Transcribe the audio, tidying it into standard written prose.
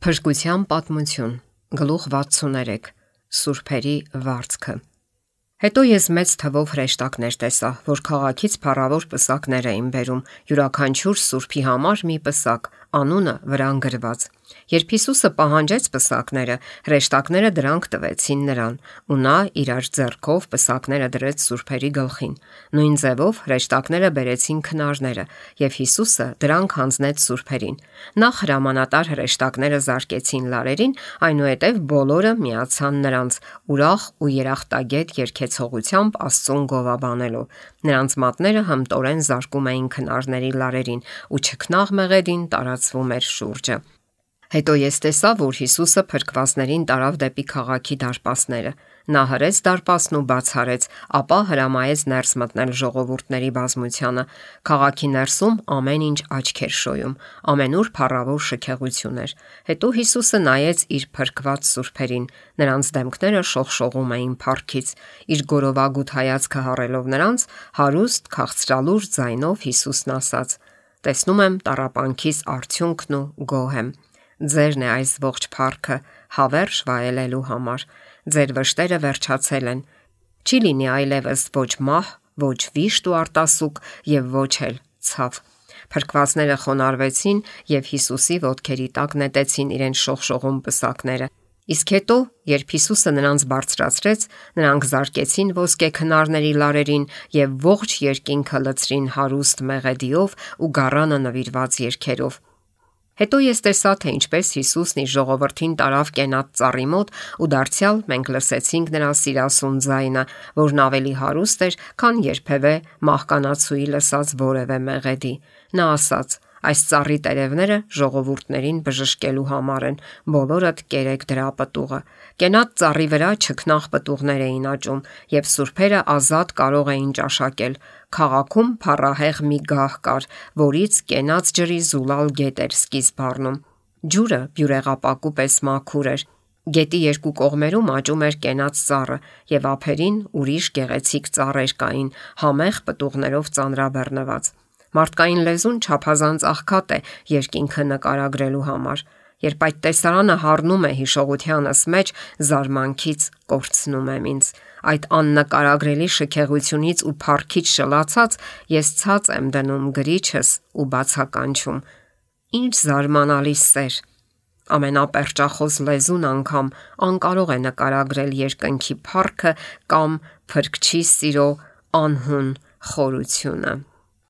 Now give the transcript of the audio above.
Փրկության պատմություն, գլուխ 63, Սուրբերի վարձքը։ Հետո ես մեծ թվով հրեշտակներ տեսա, որ քաղաքից փառավոր պսակներ էին բերում, յուրաքանչյուր սուրբի համար մի պսակ, անունը վրան գրված։ Երբ Հիսուսը պահանջեց պսակները, հրեշտակները դրանք տվեցին նրան, ու նա իրար ձեռքով պսակները դրեց սուրբերի գլխին։ Նույն ձևով հրեշտակները բերեցին քնարները, եւ Հիսուսը դրանք հանձնեց սուրբերին։ Նախ հրամանատար հրեշտակները զարկեցին լարերին, այնուհետև բոլորը միացան նրանց, ուրախ ու երախտագետ երգեցողությամբ Աստծուն գովաբանելով։ Նրանց մատները հմտորեն զարկում էին քնարների լարերին, ու չքնաղ մեղեդին տարածվում էր շուրջը։ Հետո ես տեսա, որ Հիսուսը փրկվածներին տարավ դեպի քաղաքի դարպասները։ Նա հրեց դարպասն ու բաց արեց, ապա հրամայեց ներս մտնել ժողովուրդների բազմությանը։ Քաղաքի ներսում ամեն ինչ աչք էր շոյում, ամենուր փառավոր շքեղություն էր։ Հետո Հիսուսը նայեց իր փրկված սուրբերին, նրանց դեմքները շողշողում էին փառքից։ Իր գորովագութ հայացքը հառելով նրանց, հարուստ քաղցրալուր ձայնով Հիսուսն ասաց. «Տեսնում եմ տառապանքիս արդյունքն ու գոհ եմ։ Ձերն է այս ողջ փառքը հավերժ վայելելու համար։ Ձեր վշտերը վերջացել են։ Չի լինի այլևս ոչ մահ, ոչ վիշտ ու արտասուք եւ ոչ էլ ցավ»։ Փրկվածները խոնարհվեցին եւ Հիսուսի ոտքերի տակ նետեցին իրենց շողշողում պսակները։ Իսկ հետո, երբ Հիսուսը նրանց բարձրացրեց, նրանք զարկեցին ոսկե քնարների լարերին եւ ողջ երկինքը լցրին հարուստ մեղեդիով ու գառանը նվիրված երգերով։ Հետո ես տեսա, թե ինչպես Հիսուսն իր ժողովրդին տարավ կենատ ծառի մոտ ու դարձյալ մենք լսեցինք նրա սիրասուն ձայնը, որն ավելի հարուստ էր, քան երբևէ մահկանացուի լսած որևէ մեղեդի։ Նա ասաց. «Այս ծառի տերևները ժողովուրդներին բժշկելու համար են, բոլորդ կերեք դրա պտուղը»։ Կենատ ծառի վրա չքնաղ պտուղներ էին աճում, եւ սուրբերը ազատ կարող էին ճաշակել։ Քաղաքում փառահեղ մի գահ կար, որից կենաց ջրի զուլալ գետ էր սկիզբ առնում։ Ջուրը բյուրեղապակու պես մաքուր էր։ Գետի երկու կողմերում աճում էր կենաց ծառը, եւ ափերին ուրիշ գեղեցիկ ծառեր կային, համեղ պտուղներով ծանրաբեռնված։ Մարդկային լեզուն չափազանց աղքատ է երկինքը նկարագրելու համար։ Երբ այդ տեսարանը հառնում է հիշողությանս մեջ, զարմանքից կորցնում եմ ինձ։ Այդ աննկարագրելի շքեղությունից ու փառքից շլացած, ես ցած եմ դնում գրիչս ու բացականչում. Ինչ զարմանալի սեր։ Ամենապերճախոս լեզուն անգամ անկարող է նկարագրել երկնքի փառքը կամ Փրկչի սիրո անհուն խորությունը։